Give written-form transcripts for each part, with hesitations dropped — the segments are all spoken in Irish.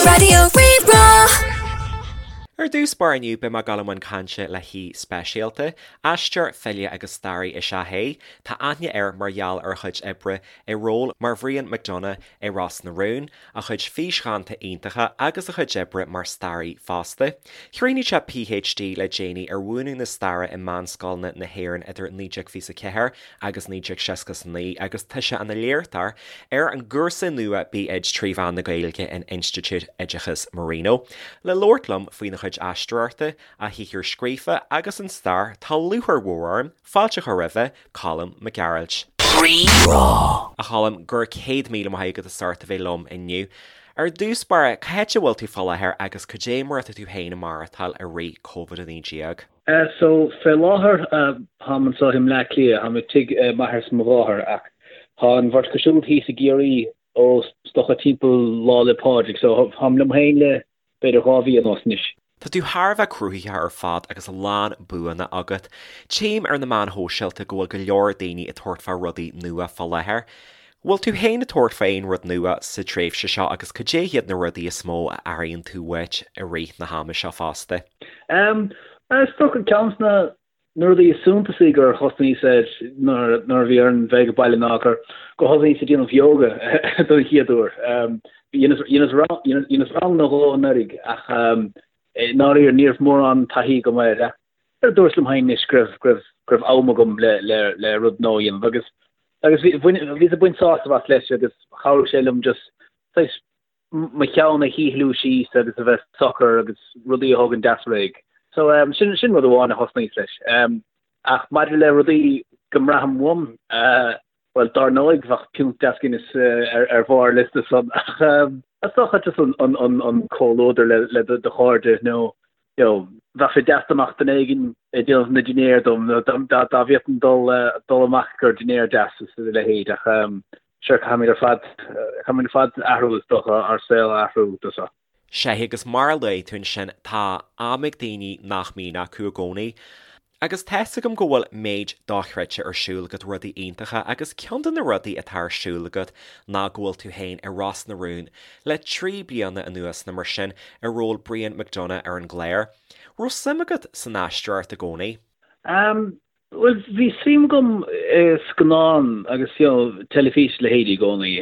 Raidió Rí-Rá. Ar dtús báire inniu beidh mé ag dul i mbun cainte le haoi speisialta. Aisteoir, file agus staraí is ea é. Tá aithne air mar gheall ar a chuid oibre i ról mar Bhrian McDonagh i Ros na Rún, a chuid físdhánta iontacha agus a chuid oibre mar staraí fosta. Chríochnaigh sé PhD le déanaí ar mhúineadh na staire i meánscoileanna na hÉireann idir 1924 agus 1969 agus tá sé ina léachtóir ar an gcúrsa nua B.Ed 3 mheán na Gaeilge in Institiúid Oideachais Marino. Le labhairt liom faoina chuid aisteoireachta, a shaothar scríofa agus an stair, tá lúcháir mhór orm fáilte a chur roimhe, Colm Mac Gearailt. Rí-Rá. A Choilm, go raibh 100,000 maith agat as ucht a bheith liom inniu. Ar dtús báire, cá háit a bhfuil tú fá láthair agus cad é mar atá tú féin ag maireachtáil i rith Covid-19? So, fé láthair, táim anseo i mBleá Cliath, táim i tigh m'athar is mo mháthair, ach tá an bheirt acu siúd thíos i gCiarraí ó is dócha timpeall Lá 'le Pádraig, so táim liom féin le b'fhéidir 2 mhí anuas anois. Tá tú thar a bheith cruthaitheach ar fad agus a lán buanna agat. Tchím ar na meáin shóisialta go bhfuil go leor daoine ag tabhairt fá rudaí nua fá láthair. Bhfuil tú féin ag tabhairt fá aon rud nua sa tréimhse seo agus cad é hiad na rudaí is mó a airíonn tú uait i rith na hama seo fosta? Em, is dócha ceann de na rudaí is suntasaí gur thosnaíos air nuair a bhí orainn bheith ag baile ná gur gur thosnaíos ag déanamh yoga don chéad uair. Em, dheineas dheineas rang dheineas rang nó dhó anuraidh ach em, i ndáiríre ní raibh mórán taithí agam air ach Dúrt liom féin anois go raibh, go raibh, go raibh am agam le, le, le rud nua a dhéanamh agus, agus bhí, bhain, bhíos ag baint sásamh as leis agus chabhraigh sé liom just saghas mo cheann a shíothlú síos agus a bheith socair agus rudaí a thógaint deas réidh. So um, sin, sin rud amháin a thosnaíos leis. Um, ach maidir le rudaí go mbraithim uaim, uh, Bhuel, dár ndóigh, bheadh piúnt deas Guinness ar bharr an liosta san, ach is dócha just an comhluadar le do chairde nó, you know, bheadh sé deas dá mbeadh duine éigin ag déanamh na dinnéar dom nó dá bhféadfainn dul dul amach ar dinnéar deas is a leithéid ach sure, caithfimid ar fad, caithfimid ar fad athrú is dócha, ár saol a athrú do seo. Sea, agus mar a luaigh tú ansin, tá am ag daoine nach mbíonn acu i gcónaí. Agus tá's agam go bhfuil méid dochreidte ar siúl agat, rudaí iontacha, agus ceann de na rudaí atá ar siúl agat ná go bhfuil tú féin i Ros na Rún le 3 bliana anuas nó mar sin, i ról Brian McDonagh ar an gclár. Raibh suim agat san aisteoireacht i gcónaí? Bhuel, bhí suim agam i scannáin agus you know teilifís a leithéidí i gcónaí.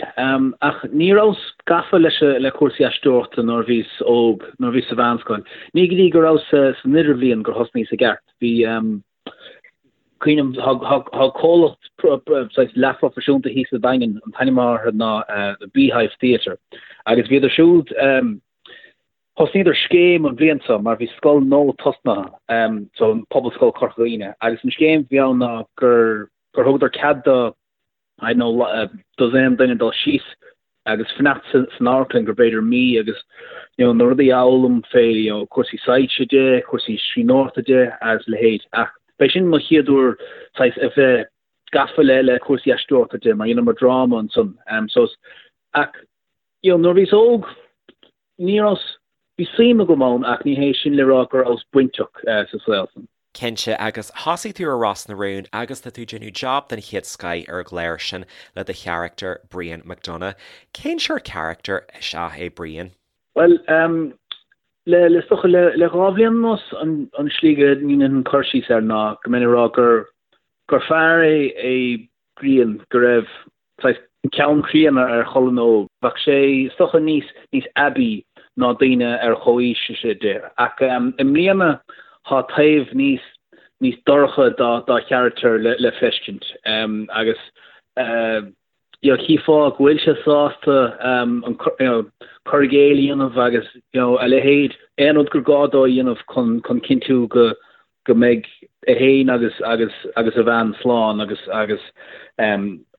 Ach ní rabhas gafa leis le cúrsaí aisteoireachta nuair a bhíos óg, nuair a bhíos sa mheánscoil. Ní go dtí go rabhas san idirbhliain gur thosnaíos i gceart. Bhí, cuimhním, tá comhlacht saghas leathphroifisiúnta thíos sa Daingean, an t-ainm atá orthu ná The Beehive Theatre, agus bhíodar siúd, Thosnaíodar scéim an bhliain seo mar bhí scoil nua tosnaithe, so an Pobalscoil Corca Dhuibhne, agus an scéim a bhí ann ná gur gur thugadar cead do I don't know dosaen duine dul síos agus fanacht san amharclann go b'fhéidir mí agus you know na rudaí a fhoghlaim fé you know cúrsaí soilse de, cúrsaí scríbhneoireachta de agus a leithéid. Ach b'é sin mo chéad uair saghas a bheith gafa le le cúrsaí aisteoireachta de mar dheineamar dráma ansan. So ach you know nuair a bhíos óg Ní rabhas, bhí suim agam ann ach ní hé sin le rá go rabhas bainteach sa saol san. Cinnte, agus thosaigh tú ar Ros na Rún agus tá tú ag déanamh job den chéad scoith ar an gclár sin le do charachtar Brian McDonagh. Cén sórt carachtar is ea é Brian? Bhuel, le, le, is dócha le, le 2 bhliain anuas an, an slí go ndéanfainn cur síos air ná go mbeinn ag rá gur, gur fear é, é Brian go raibh saghas ceann críonna ar cholainn óg. Bheadh sé is dócha níos níos aibí ná daoine ar chomhaois de. Ach i mbliana tá taobh níos níos dorcha dá dá charachtar le le feiscint. Agus you know chífeá go bhfuil sé sásta an you know cur i gcéill a dhéanamh agus you know a leithéid, aon rud gur gá dó a dhéanamh chun chun cinntiú go go mbeidh é féin agus agus agus a bhean slán agus agus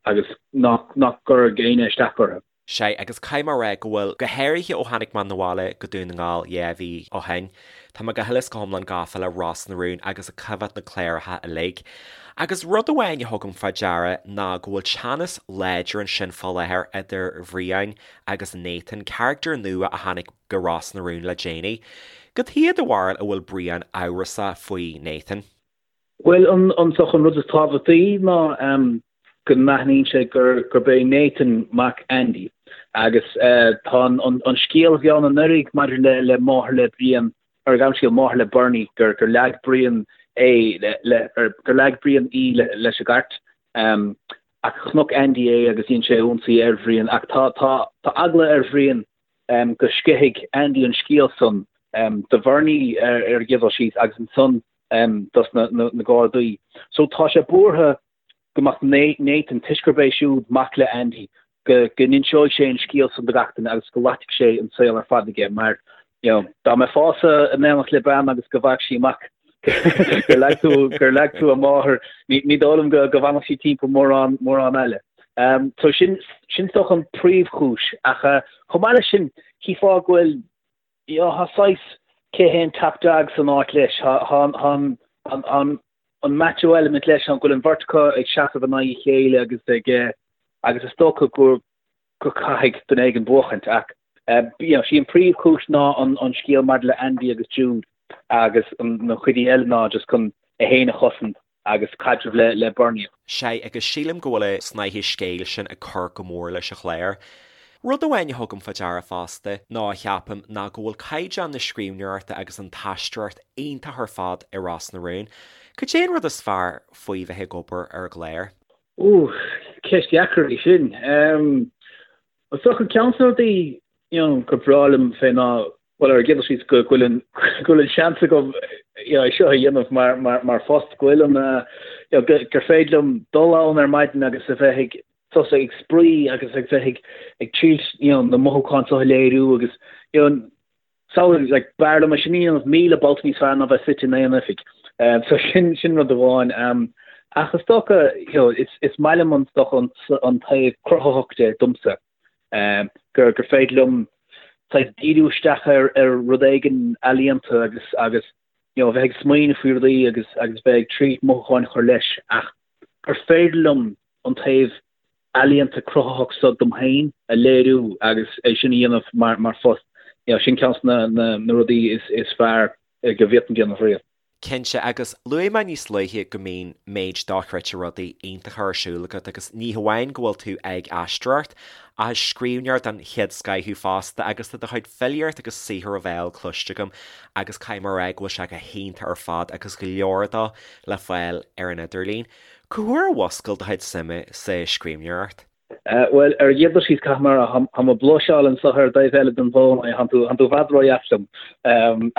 agus nach nach gcuirfidh éinne isteach orthu. Sea, agus caithfidh mé a rá go bhfuil, go háirithe ó tháinig mé 'na bhaile go Dún na nGall 2 mhí ó shin, tá mé go huile is go hiomlán gafa le Ros na Rún agus ag coimhéad na cláracha uilig. Agus rud amháin a thugaim fá deara ná go bhfuil teannas láidir ansin fá láthair idir Bhrian agus Nathan, carachtar nua a tháinig go Ros na Rún le déanaí. Cad chuige do bharúil a bhfuil Brian amhrasach faoi Nathan? Bhuel, an, an, an rud is tábhachtaí ná. go n-aithníonn sé gur gurb é Nathan mac Andy agus tá an scéal a bhí ann anuraidh maidir le le máthair le Brian ar an scéal máthair le Bernie gur gur leag Brian é le le gur leag Brian í le leis an gcairt ach chonaic Andy é agus dhein sé ionsaí ar Bhrian ach tá tá tá eagla ar Bhrian go sceithfidh Andy an scéal san do Bhernie ar an gcéad dul síos agus ansan dos na na Gardaí. So tá sé buartha go mbeadh Nathan, toisc gurb é siúd mac le Andy, go n-inseoidh sé an scéal san do gach duine agus go loitfidh sé an saol ar fad aige mar, you know, dá mbeifeása in éineacht le bean agus go bhfaigheadh sí amach gur leag tú, gur leag tú a máthair, ní, ní dóigh liom go, go bhfanfadh sí timpeall mórán, mórán eile. Um, so sin, sin is dócha an príomhchúis ach uh, chomh maith leis sin, chífeá go bhfuil you know, tá saghas cé hé an top dog san áit leis, tá, tá, tá an, an, an, an macho element leis an go bhfuil an bheirt acu ag seasamh in aghaidh a chéile agus ag eh, agus is dócha go go caithfidh duine éigin buachaint ach eh, you know, sí an príomhchúis ná an, an scéal maidir le Andy agus Jude agus an, na cuidí eile ná just chun é féin a chosaint agus caidreamh le le Bernie. Sea, agus sílim go bhfuil an snáithe scéil sin ag cur go mór leis an chlár. Rud amháin a thugaim fá deara fosta, nó a cheapaim, ná go bhfuil caighdeán na scríbhneoireachta agus an t-aisteoireacht iontach ar fad i Ros na Rún. Cad é an rud is fearr faoi bheith ag obair ar an gclár? Ooh, ceist dheacair í sin. Is dócha ceann de na rudaí you know, gur breá liom fé ná bhuel ar an gcéad dul síos go bhfuil an go bhfuil an seans agam you know, é seo a dhéanamh mar mar mar phost go bhfuil an you know, gur féidir liom dul ann ar maidin agus a bheith ag tosú ag spraoi agus ag bheith ag ag triail you know, na mothúcháin seo a léiriú agus you know, samhlaigh like b'fhearr liom é sin a dhéanamh 1,000 babhta níos fearr ná bheith suite in aon oifig. Um, so sin sin rud amháin. Um, ach is dócha you know, is, is maith liom an, dócha an, an taobh cruthaitheach de domsa. Um, gur, gur féidir liom saghas díriú isteach ar, ar rud éigin ealaíonta agus, agus you know, bheith ag smaoineamh faoi rudaí agus, agus bheith ag triail mothúcháin a chur leis ach gur féidir liom an taobh ealaíonta cruthaitheach seo dom féin a léiriú agus é sin a dhéanamh mar, mar phost. You know, sin ceann de na, na, na rudaí is, is fearr go bhféadfainn déanamh riamh. Cinnte, agus luaigh mé níos luaithe go mbíonn méid dochreidte rudaí iontacha ar siúl agat agus ní hamháin go bhfuil tú ag aisteoireacht, ach is scríbhneoir den chéad scoth thú fosta agus tá do chuid filíocht agus saothar ó bhéal cloiste agam agus caithfidh mé a rá go bhfuil sé go hiontach ar fad agus go leor dó le fáil ar an idirlíon. Cá huair a mhuscail do chuid suime sa scríbhneoireacht? Bhuel, ar an gcéad dul síos, caithfidh mé a rá, tá mé ag bluiseáil anseo ar an dtaobh eile den bhfón, tá tú i bhfad ródheas liom.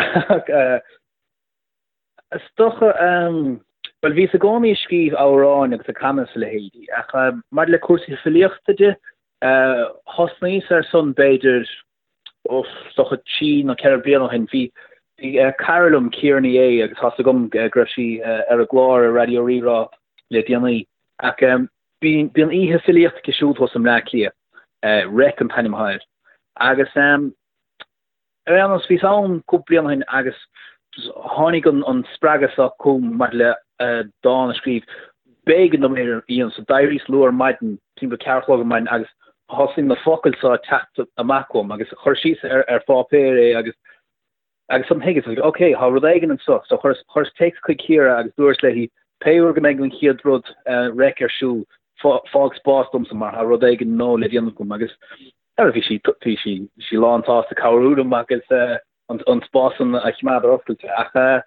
Ach is dócha, bhuel, bhíos i gcónaí ag scríobh amhráin agus ag canadh is a leithéidí, ach maidir le cúrsaí filíochta de, thosnaíos air san b'fhéidir uff, is dócha 3 nó 4 bliana ó shin, bhí cara liom, Ciara Ní É, agus tá's agam go raibh sí ar an gclár ar Raidió Rí-Rá le déanaí, ach bíonn oíche filíochta aici siúd thuas i mBleá Cliath, Reic an t-ainm atá air, agus ar aon nós, bhíos ann cúpla bliain ó shin agus tháinig an spreagadh seo chugam maidir le dán a scríobh. B'éigean dom é a dhéanamh, so d'éiríos luath ar maidin, timpeall 4 a chlog ar maidin agus thosaigh na focail seo ag teacht amach uaim agus chuir síos ar ar pháipéar é agus agus ansan thuigeas, ok, tá rud éigin anseo. So chuireas chuireas téacs chuig Ciara agus dúras léi pé uair go mbeidh an chéad rud reic ar siúl, fág spás domsa mar tá rud éigin nua le déanamh agam agus bhí sí bhí sí sí lán sásta cabhrú liom agus an spás san a choimeád ar oscailt. Ach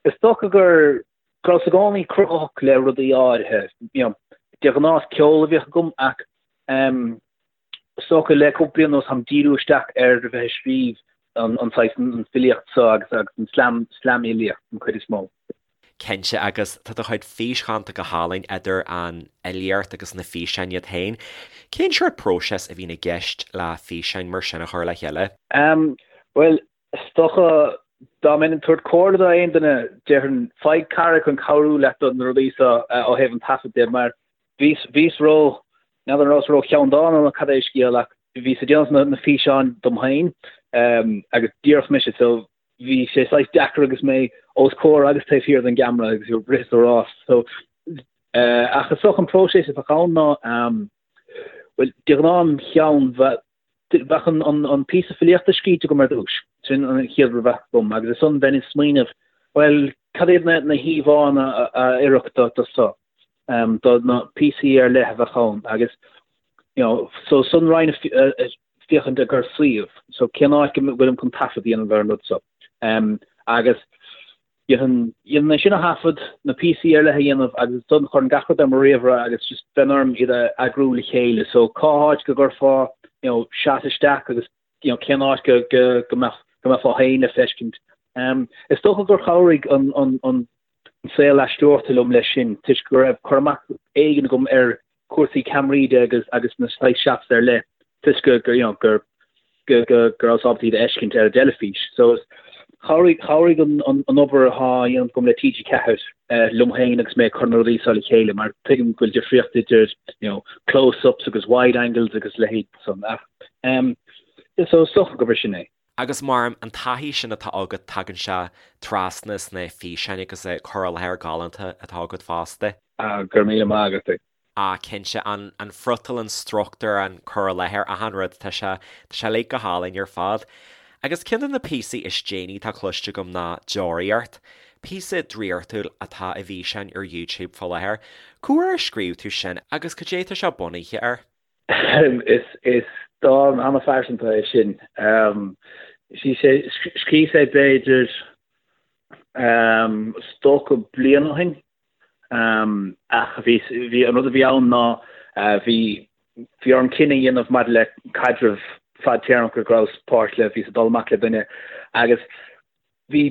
is dócha gur go rabhas i gcónaí cruthaitheach le rudaí áirithe. You know, de ghnáth is ceol a bhíodh agam ach is dócha le cúpla bliain anuas táim díriú isteach ar a bheith ag scríobh an an saghas an filíocht seo agus agus an slam slamfhilíocht an chuid is mó. Cinnte, agus tá do chuid físdhánta go hálainn idir an fhilíocht agus na físeáin iad féin. Cén sórt próiseas a bhíonn i gceist le físeáin mar sin a chur le chéile? Bhuel, Is dócha, dá mbeinn ag tabhairt comhairle do aon duine, déarfainn, faigh cara chun cabhrú leat do na rudaí seo ó thaobh an taifead de, mar bhíos, bhíos ró, n'fheadar an rabhas ró cheanndána nó cad é an scéal ach bhíos ag déanamh na físeáin dom féin agus díreach mise, so bhí sé saghas deacair agus mé os comhair agus taobh thiar den gceamara agus ag rith is ag rás. So, ach is dócha an próiseas a bheadh ann ná, bhuel, de ghnáth im cheann bheadh, Bheadh an píosa filíochta scríte agam ar dtús, sin an chéad rud a bheadh agam, agus ansan bheinn ag smaoineamh, bhuel, cad iad na híomhánna a oirfeadh do seo? do na píosaí ar leith a bheadh ann agus you know so ansan raghainn féachaint i gcomhair suíomh so cén áit go bhfuilim chun taifead a dhéanamh ar an rud so agus dhéanfainn dhéanfainn é sin a thaifead, na píosaí ar leith a dhéanamh agus ansan chuirfinn gach rud ar mo ríomhaire agus just bheinn orm iad a eagrú le chéile so cá háit go gcuirfeá you know shot isteach agus you know cén áit go go go mbeadh go mbeifeá féin le feiscint. Is dócha gur chabhraigh an an an saol aisteoireachta liom leis sin toisc go raibh cur amach éigin agam ar chúrsaí ceamaraí de agus agus na saghas shots ar leith toisc go gur you know gur go go go rabhas ábalta iad a fheiscint ar an dteilifís. So chabhraigh chabhraigh an an an obair atá á dhéanamh agam le TG4 liom féin agus mé ag cur na rudaí seo le chéile mar tuigim go bhfuil difríocht idir you know close-ups agus wide angles agus leithéid san ach um so is dócha gurb é sin é. Agus mar an taithí sin atá agat tagann sé trasna sna físeáin agus an cur i láthair galánta atá agat fosta. Ah, go raibh míle maith agat. Ah, cinnte, an an friotal, an struchtúr, an cur i láthair, achan rud, tá sé, tá sé uilig go hálainn ar fad. Agus ceann de na píosaí is déanaí atá cloiste agam ná Deoraíocht. Píosa draíochtúil atá i bhfíseán ar YouTube fá láthair. Cá huair a scríobh tú sin agus cad é tá sé bunaithe air? Is dán an-phearsanta é sin. Scríobhas é b'fhéidir is dócha bliain ó shin. Ach bhí bhí an rud a bhí ann ná bhí bhí orm cinneadh a dhéanamh maidir le caidreamh fadtéarmach go rabhas páirt le, bhíos ag dul amach le duine agus bhí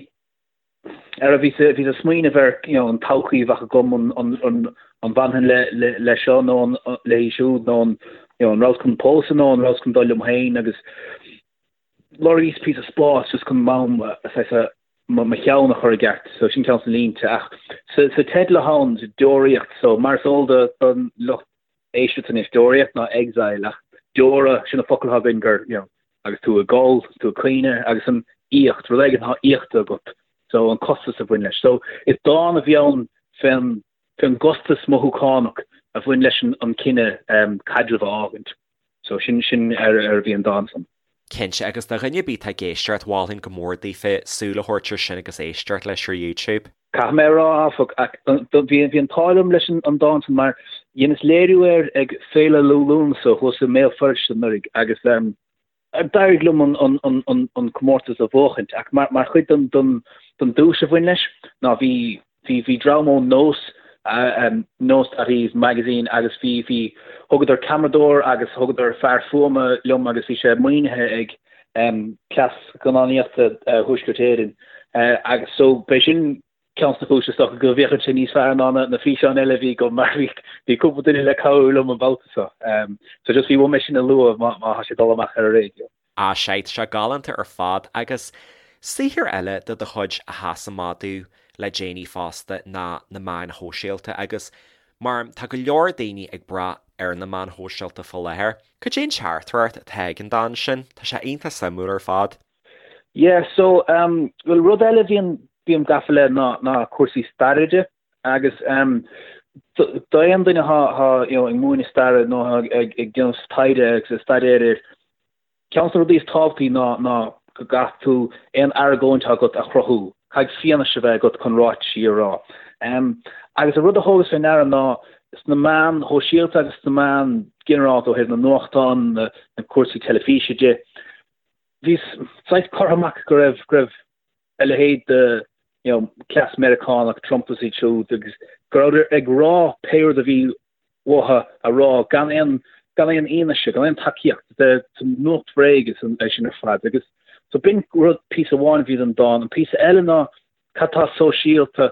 ar bhíos bhíos ag smaoineamh ar you know an todhchaí a bheadh agam an an an an bhfanfainn le le le seo nó an léi siúd nó an you know an rabhas chun pósadh nó an rabhas chun dul liom féin agus lorgaíos píosa spáis just chun m'am saghas mo mo cheann a chur i gceart so sin ceann de na línte ach sa sa teideal atá ann deoraíocht so mar is eol do don lucht éisteachta anois, deoraíocht ná exile ach deora, sin an focal atá againn gur, you know, agus tú ag gol, tú ag caoineadh agus an íocht, rud éigin atá íochta agat, so an costas a bhain leis. So is dán a bhí ann fén, fén gcostas mothúchánach a bhain leis an, an cinneadh um, caidreamh a fhágaint. So sin, sin ar, ar a bhí an dán san. Cinnte, agus do dhuine ar bith atá ag éisteacht, mholfainn go mór daofa súil a thabhairt ar sin agus éisteacht leis ar YouTube. Caithfidh mé a rá, áfach, bhí an t-ádh liom leis an dán san mar dheineas léiriú air ag Féile Liú Lúnasa thuas i mBéal Feirste anuraidh agus d'éirigh liom an comórtas a bhuachaint ach mar chuid den duais a bhain leis ná bhí bhí dream ó Nós, Nós.ie magazine agus bhí bhí thugadar ceamaradóir agus thugadar fear fuaime liom agus bhí sé maoinithe ag Cleas Scannánaíochta Thuaisceart Éireann agus so b'é sin ceann de na cúiseanna is dócha go bhféachann sé níos fearr ná na físeáin eile a bhí agam mar bhí bhí cúpla duine le cabhrú liom an babhta seo. So just bhí uaim é sin a lua má má tá sé ag dul amach ar an raidió. Ah sea, tá sé galánta ar fad agus saothar eile de do chuid a sheas amach domh le déanaí fosta ná na meáin shóisialta agus mar tá go leor daoine ag brath ar na meáin shóisialta fá láthair. Cad é an teachtaireacht atá ag an dán sin? Tá sé iontach suimiúil ar fad. Yeah, so, um, well rud eile a bhíonn, bím gafa le ná, ná cúrsaí staire de agus um, d'aon duine atá, atá, you know, ag múineadh staire nó ag, ag, ag déanamh taighde agus ag staidéar air, Ceann de na rudaí is tábhachtaí ná ná go gcaithfidh tú aon argóint atá agat a chruthú, caithfidh fianaise a bheith agat chun ráitisí a rá. Agus an rud a thógas fé ndeara ná sna meáin shóisialta agus sna meáin ginearálta ó thaobh na nuachtán, na cúrsaí teilifíse de, bhí saghas curtha amach go raibh go raibh a leithéid de you know cleas Meiriceánach, Trump is iad siúd agus go rabhadar ag rá pé rud a bhí uathu a rá gan aon gan aon fhianaise, gan aon tacaíocht de nuacht bhréige é sin ar fad. Agus so b'in rud píosa amháin a bhí den dán. An píosa eile ná cad tá sóisialta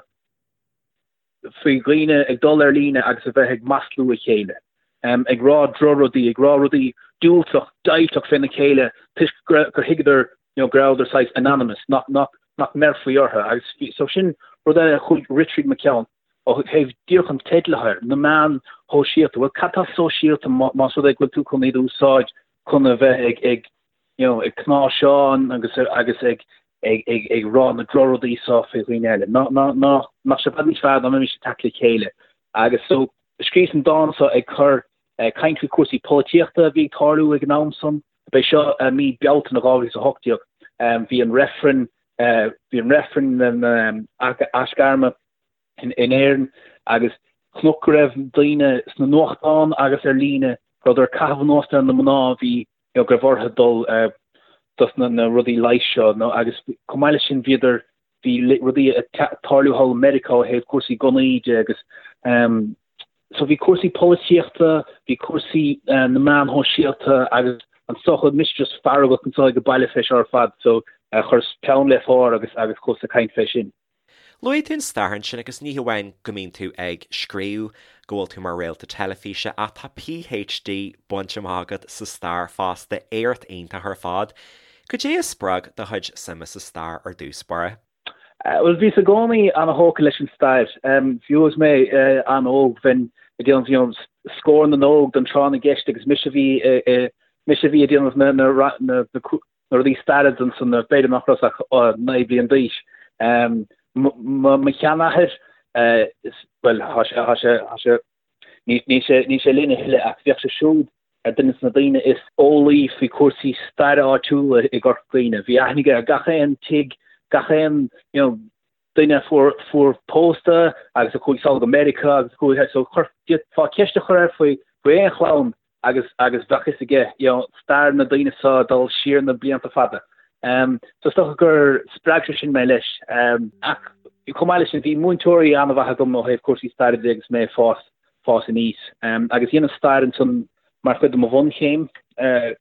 faoi dhaoine ag dul ar líne agus a bheith ag maslú a chéile, ag rá drochrudaí, ag rá rudaí diúltach, deighilteach féna chéile toisc gur thuigeadar you know go rabhadar saghas anonymous, nach nach nach mbeirfí orthu. Agus so sin rud eile a chuaigh rith tríd mo cheann. Ó thaobh díreach an teidil atá air, na meáin shóisialta, bhuel cad tá sóisialta más rud é go bhfuil tú chun iad a úsáid chun a bheith ag ag you know ag cnáimhseán agus agus ag ag ag ag rá na drochrudaí seo faoi dhaoine eile. Ná ná ná nach sé i bhfad níos fearr dá mbeimis ag teacht le chéile. Agus so scríos an dán seo ag cur ag caint faoi cúrsaí polaitíochta a bhí ag tarlú ag an am san. B'é seo mí Bealtaine 2018. Bhí an reifreann bhí an reifreann na aisghairme in Éirinn agus. Chonac go raibh daoine sna nuachtáin agus ar líne go rabhadar ag caitheamh anuas ar na mná a bhí you know go raibh orthu dul dos na na rudaí leighis seo nó agus chomh maith leis sin bhíodar bhí rudaí ag tarlú thall i Meiriceá ó thaobh cúrsaí gunnaí de agus um, so bhí cúrsaí polaitíochta, bhí cúrsaí uh, na meáin shóisialta agus an socha mise just feargach anseo ag an baile fé seo ar fad so uh, chuireas peann le pár agus agus chuas ag caint fé sin. Luaigh tú an stair ansin agus ní hamháin go mbíonn tú ag scríobh, go bhfuil tú mar réalta teilifíse ach tá PhD bainte amach agat sa stair fosta, éacht iontach ar fad. Cad é a spreag do chuid suime sa stair ar dtús báire? Bhuel, bhíos i gcónaí an-thógtha leis an stair. Fiú agus mé an-óg, bheinn ag déanamh you know, Scór na nÓg don tráth na gceist agus mise a bhí mise a bhí ag déanamh na na na na rudaí staire ansan, b'fhéidir nach rabhas ach 9 bliain d'aois. Mo sheanathair, bhuel, tá sé, tá sé, tá sé, níl sé, níl sé linn a thuilleadh ach bhíodh sé siúd ar duine de na daoine is eolaí faoi chúrsaí staire áitiúla i gCorca Dhuibhne. Bhí aithne aige ar gach aon tigh, gach aon, you know, duine a fuair, fuair pósta agus a chuaigh sall go Meiriceá agus a chuaigh, so chuir, d'fhéadfá ceist a chur air faoi, faoi aon chlann agus, agus bheadh fhios aige, you know, stair na daoine seo ag dul siar na blianta fada. Um, so is dócha gur spreag sé sin mé leis. Um, ach chomh maith leis sin, bhí múinteoirí an-mhaith agam ó thaobh cúrsaí staire de agus mé ag fás, fás aníos. Um, agus dheineas stair ansan mar chuid de mo bhunchéim uh,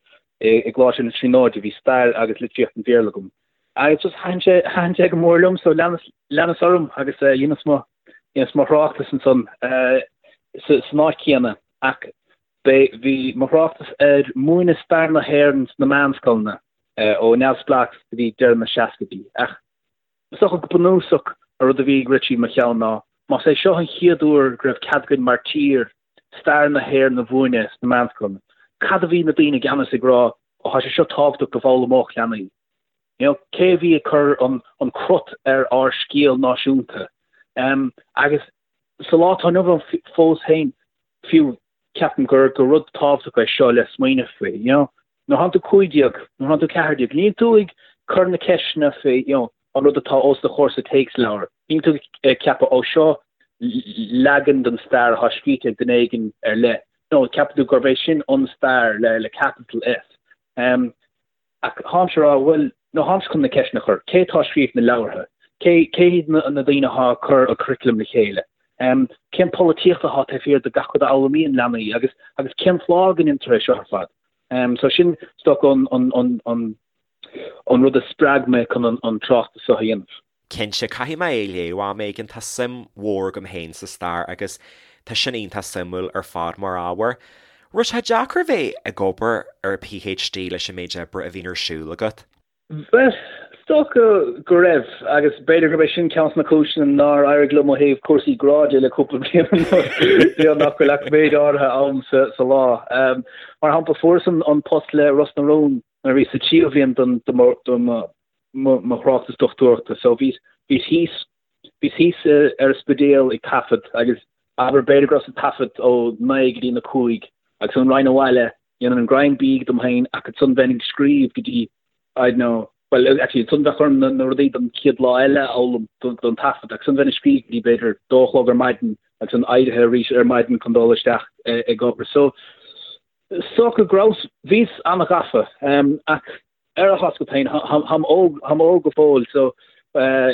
i, i gColáiste na Tríonóide, bhí stair agus litríocht an Bhéarla agam. Agus just thaitin sé, thaitin sé go mór liom, so leanas, leanas orm agus uh, dheineas mo, dheineas mo thráchtas ansan uh, sa, san áit chéanna. Ach b'é, bhí mo thráchtas ar múineadh stair na hÉireann sna meánscoileanna uh, ó neamhspleáchas go dtí deireadh na seascaidí. Ach is dócha go bunúsach an rud a bhí ag rith trí mo cheann ná más é seo an chéad uair go raibh cead againn mar tír stair na hÉireann a mhúineadh sna meánscoileanna, cad a bhí na daoine i gceannas ag rá, ó tá sé seo tábhachtach go bhfoghlaimeodh leanaí. You know, cé a bhí ag cur an, an crot ar ár scéal náisiúnta? Um, agus sa lá atá inniu ann fós féin, fiú, ceapaim gur, gur rud tábhachtach é seo le smaoineamh faoi, you know. Nuair atánn tú 15, nuair atánn tú 14, níl tú ag cur na ceisteanna faoi, you know, an rud atá os do chomhair sa téacsleabhar. Níl tú ag ceapadh, ó seo leagan den stair atá scríte ag duine éigin ar leith. No, ceapann tú gurb é sin an stair le, le capital S. Um, ach táimse ag rá, bhuel, no táimse chun na ceisteanna a chur. Cé atá ag scríobh na leabhartha? Cé, cé hiad na, na daoine atá ag cur an curriculum le chéile? Um, cén polaitíocht atá taobh thiar de gach rud a fhoghlaimíonn leanaí agus, agus cén fáth go ndéantar é seo ar fad? Um, so sin, is dócha, an, an, an, an, an rud a spreag mé chun an, an tráchtas seo a dhéanamh. Cinnte, caithfidh mé é a léamh am éigin, tá suim mhór agam féin sa stair agus tá sin iontach suimiúil ar fad mar ábhar. Raibh sé deacair bheith ag obair ar PhD leis an méid oibre a bhíonn ar siúl agat? Bhuel, is dócha go raibh, agus b'fhéidir gurb é sin ceann de na cúiseanna nár éirigh liom ó thaobh cúrsaí grá de le cúpla bliain anuas, nach bhfuil ach méid áirithe am sa lá. Mar shampla, fuaireas an post le Ros na Rún nuair a bhíos sa tríú bhliain de mo mo thráchtas dochtúireachta. So bhíos, bhíos thíos, bhíos thíos ar an Spidéal ag taifead agus abair b'fhéidir go rabhas ag taifead ó naoi go dtí na cúig agus ansan raghainn abhaile, dhéanfainn an greim bídh dom féin ach ansan bheinn ag scríobh go dtí, I don't know, well actually ansan bheadh orm na, na rudaí don chéad lá eile a fhoghlaim don, don taifead agus ansan bheinn ag scríobh go dtí b'fhéidir dó a chlog ar maidin agus ansan éirithe arís ar maidin chun dul isteach ag obair. So is dócha go rabhas, bhíos an-ghafa ach ar a thásca féin, táim óg, táim óg go fóill so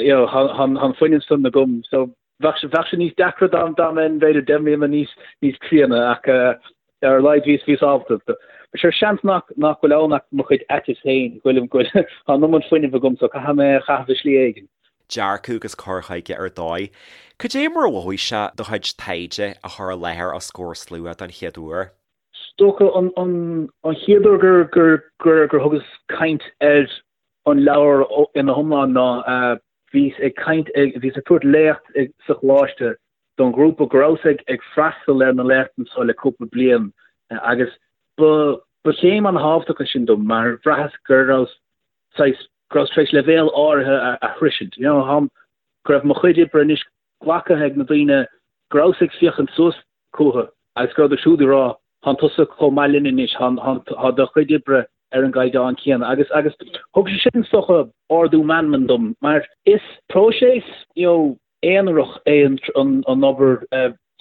you know tá an fuinneamh san agam so bheadh sé, bheadh sé níos deacra dá, dá mbeinn b'fhéidir 10 mbliana níos, níos críonna ach ar a laghad bhíos, bhíos ábalta. But sure seans nach, nach bhfuil ann ach mo chuid aiteas féin, go bhfuilim, go bhfuil, tá an iomad fuinnimh agam so caithfidh mé é a chaitheamh i slí éigin. Dearcadh agus cur chuige ar dóigh. Cad é mar a mhothaigh sé do chuid taighde a chur i láthair os comhair slua don chéad uair? Is dócha an chéad uair gur thugas caint ar an leabhar ina hiomlán ná bhíos ag caint, bhíos ag tabhairt léacht sa choláiste don ghrúpa go rabhas ag freastal ar na léachtanna seo le cúpla bliain agus ba chéim an-thábhachtach é sin dom mar bhraitheas go rabhas saghas, go rabhas tar éis leibhéal áirithe a shroisint, you know, go raibh mo chuid oibre anois glactha ag na daoine go rabhas ag féachaint suas chucu agus go rabhadar siúd ag rá, Tánn tusa chomh maith linn anois, tá do chuid oibre ar an gcaighdeán céanna. Agus agus thug sé sin is dócha ardú meanman dom mar is próiseas you know aonarach é an an obair.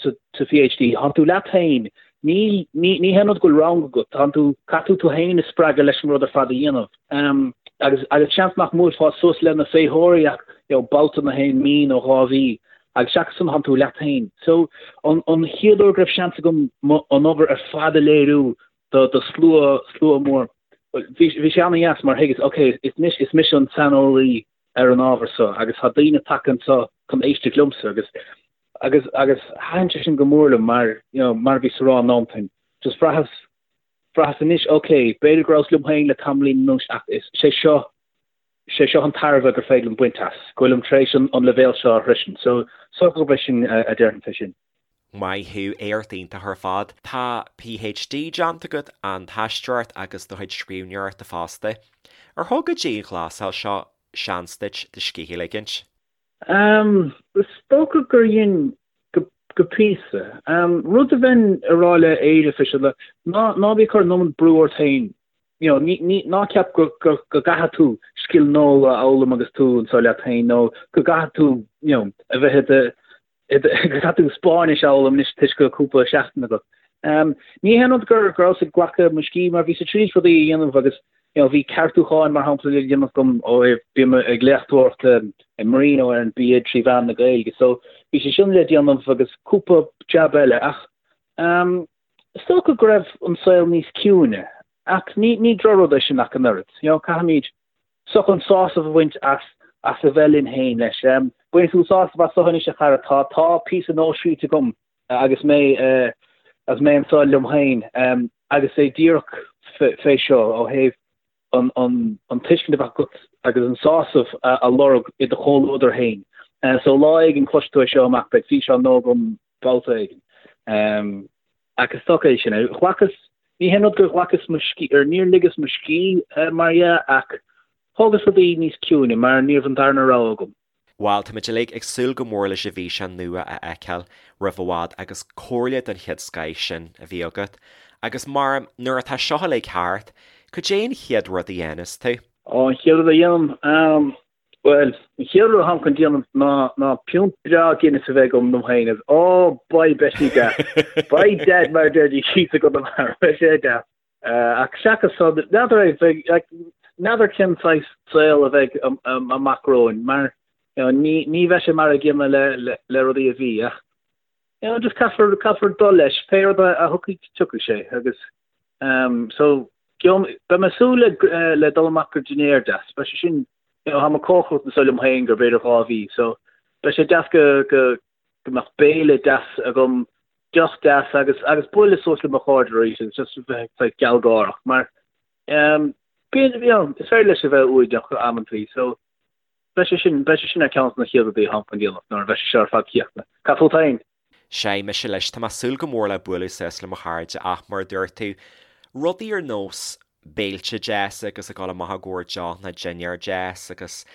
Sa PhD, tánn tú leat féin, ní ní haon rud go bhfuil rang agat, tánn tú, caithfidh tú tú féin a spreagadh leis an rud ar fad a dhéanamh. Agus agus seans nach mbuailfeá suas le na féitheoirí ach you know babhta na haon mí nó 2 mhí agus seachas san tánn tú leat féin. So an an chéad uair go raibh seans agam an obair ar fad a léiriú do do slua slua mór, bhí bhí sé an-dheas mar thuigeas ok is anois is mise an saineolaí ar an ábhar so agus tá daoine tagtha anseo chun éisteacht liomsa agus agus agus thaitin sé sin go mór liom mar you know mar a bhíos a rá an am sin just bhraitheas bhraitheas anois ok b'fhéidir go rabhas liom féin le tamaillín anuas ach is sé seo sé seo an tairbhe gur féidir liom baint as go bhfuilim tar éis an an leibhéal seo a shroisint so so gurb é sin a déarfainn fé sin. Maith thú, éacht iontach ar fad. Tá PhD déanta agat, an t-aisteoireacht agus do chuid scríbhneoireachta fosta. Ar thug an dianghlasáil seo seans duit do scíth a ligint? Is dócha gur dhein, go píosa. Rud a bheinn a rá le Éire fé seo, ná ná bí ag cur an iomad brú ort féin. You know, ní, ní, ná ceap go, go, go gcaithfidh tú scil nua a fhoghlaim agus tú anseo leat féin nó go gcaithfidh tú, you know, a bheith i do, go gcaithfidh tú Spáinnis a fhoghlaim anois toisc go bhfuil cúpla seachtain agat. Ní haon rud gur go rabhas ag glacadh mo scíth mar bhíos ag triail rudaí a dhéanamh agus you know bhí ceartúcháin mar shampla le déanamh agam ó thaobh bím ag léachtóireacht i Marino ar an BA trí mheán na Gaeilge so bhí sé sin le déanamh agus cúpla jab eile ach is dócha go raibh an saol níos ciúine ach ní ní drochrud é sin ach an oiread. You know caithfimid So chun sásamh a bhaint as as a bheith linn féin leis. Bainfidh tú sásamh as seo anois a chara, tá tá píosa nua scríte agam agus mé agus mé anseo liom féin agus é díreach fé seo ó thaobh an an an tuiscint a bheith agat agus an sásamh a lorg i do chomhluadar féin. So lá éigin cloisfidh tú é seo amach, beidh físeán nua agam babhta éigin. Ach is dócha é sin. Ghlacas, ní haon rud gur ghlacas mo scíth, or níor ligeas mo scíth mar dhea, ach thógas rudaí níos ciúine mar ní raibh an darna rogha agam. Bhuel, táimid uilig ag súil go mór leis an bhfíseán nua a fheiceáil roimh i bhfad agus comhairle den chéad scoith sin a bhí agat. Agus mar, nuair atá seo uilig thart, cad é an chéad rud a dhéanfas tú? Ó, an chéad rud a dhéanaim? Bhuel, an chéad rud atáim chun déanamh ná ná piúnt breá Guinness a bheith agam dom féin agus ó beidh beidh sé deas. Beidh dead mar a deir thíos i gConamara, beidh sé deas. Ach seachas san, n'fheadar é, bheidh, like, n'fheadar cén saghas saol a bheidh amach romhainn mar you know, ní, ní bheidh sé mar a gcéanna le, le, le rudaí a bhí ach you know, just caithfear, caithfear dul leis, pé rud a, a thiocfaidh, tiocfaidh sé agus Um, so, beidh mé ag súil le, eh, le dul amach go dinnéar deas. Beidh sé sin, you know, táim ag cócaireacht anseo liom féin go b'fhéidir 2 mhí, so beidh sé deas go, go, go mbeadh béile deas agam, deoch deas agus, agus bualadh suas le mo chairde arís agus just bheith saghas gealgháireach mar, um, bíonn, you know, is féidir leis a bheith uaigneach amantaí, so beidh sé sin, beidh sé sin ar ceann de na chéad rudaí atáim chun déanamh nuair a bheidh sé seo ar fad críochnaithe. Cad fút féin? Sea, mise leis, tá mé ag súil go mór le bualadh suas le mo chairde ach mar a dúirt tú, rudaí ar nós béilte deasa agus ag dul amach i gcomhair deoch nó dinnéar deas agus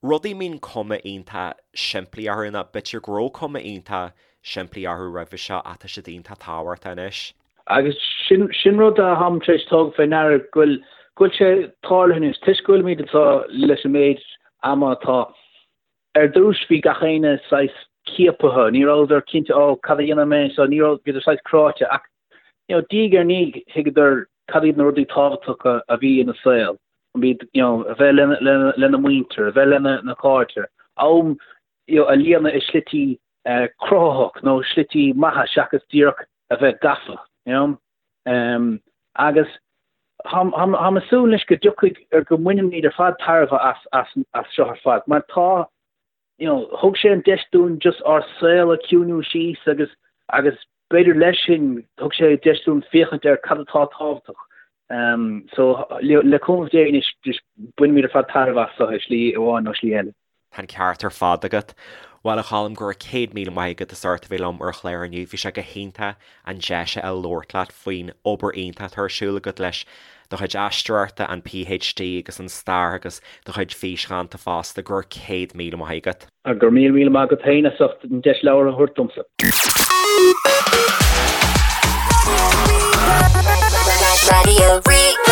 rudaí a mbíonn cuma iontach simplí orthu nó b'fhéidir go raibh cuma iontach simplí orthu roimhe seo ach tá siad iontach tábhachtach anois. Agus sin, sin rud a tháim tar éis tógáil fé ndeara go bhfuil, go bhfuil sé tarlaithe anois, toisc go bhfuilimid anseo leis an méid ama atá, Ar dtús bhí gach éinne saghas ciaptha, ní rabhadar cinnte ó cad a dhéanfaidh mé so ní raibh, bhíodar saghas cráite ach you know diaidh ar ndiaidh thuigeadar cad iad na rudaí tábhachtacha a bhí ina saol, an b'iad you know a bheith lena, lena, lena muintir, a bheith lena na cairde, am you know a líonadh i slití eh, cruthaitheach nó slití maithe seachas díreach a bheith gafa, you know. Um, agus Táim ag súil anois go dtiocfaidh, ar go mbainfimid ar fad tairbhe as, as, as seo ar fad, mar tá, you know, thug sé an deis dúinn just ár saol a chiúiniú síos agus, agus b'fhéidir leis sin, thug sé deis dúinn féachaint ar cad atá tábhachtach. Um, so, le, le cúnamh Dé anois, just bainfimid ar fad tairbhe as seo i slí amháin nó slí eile. Tá an ceart ar fad agat. Bhuel, a Choilm, go raibh 100,000 maith agat as ucht a bheith liom ar an chlár inniu. Bhí sé go hiontach an deis a fháil labhairt leat faoin obair iontach atá ar siúl agat leis do chuid aisteoireachta, an PhD agus an stair agus do chuid físdhánta fosta. Go raibh 100,000 maith agat. Go raibh míle míle maith agat féin as ucht an deis labhairt a thabhairt domsa. Radio Rí-Rá.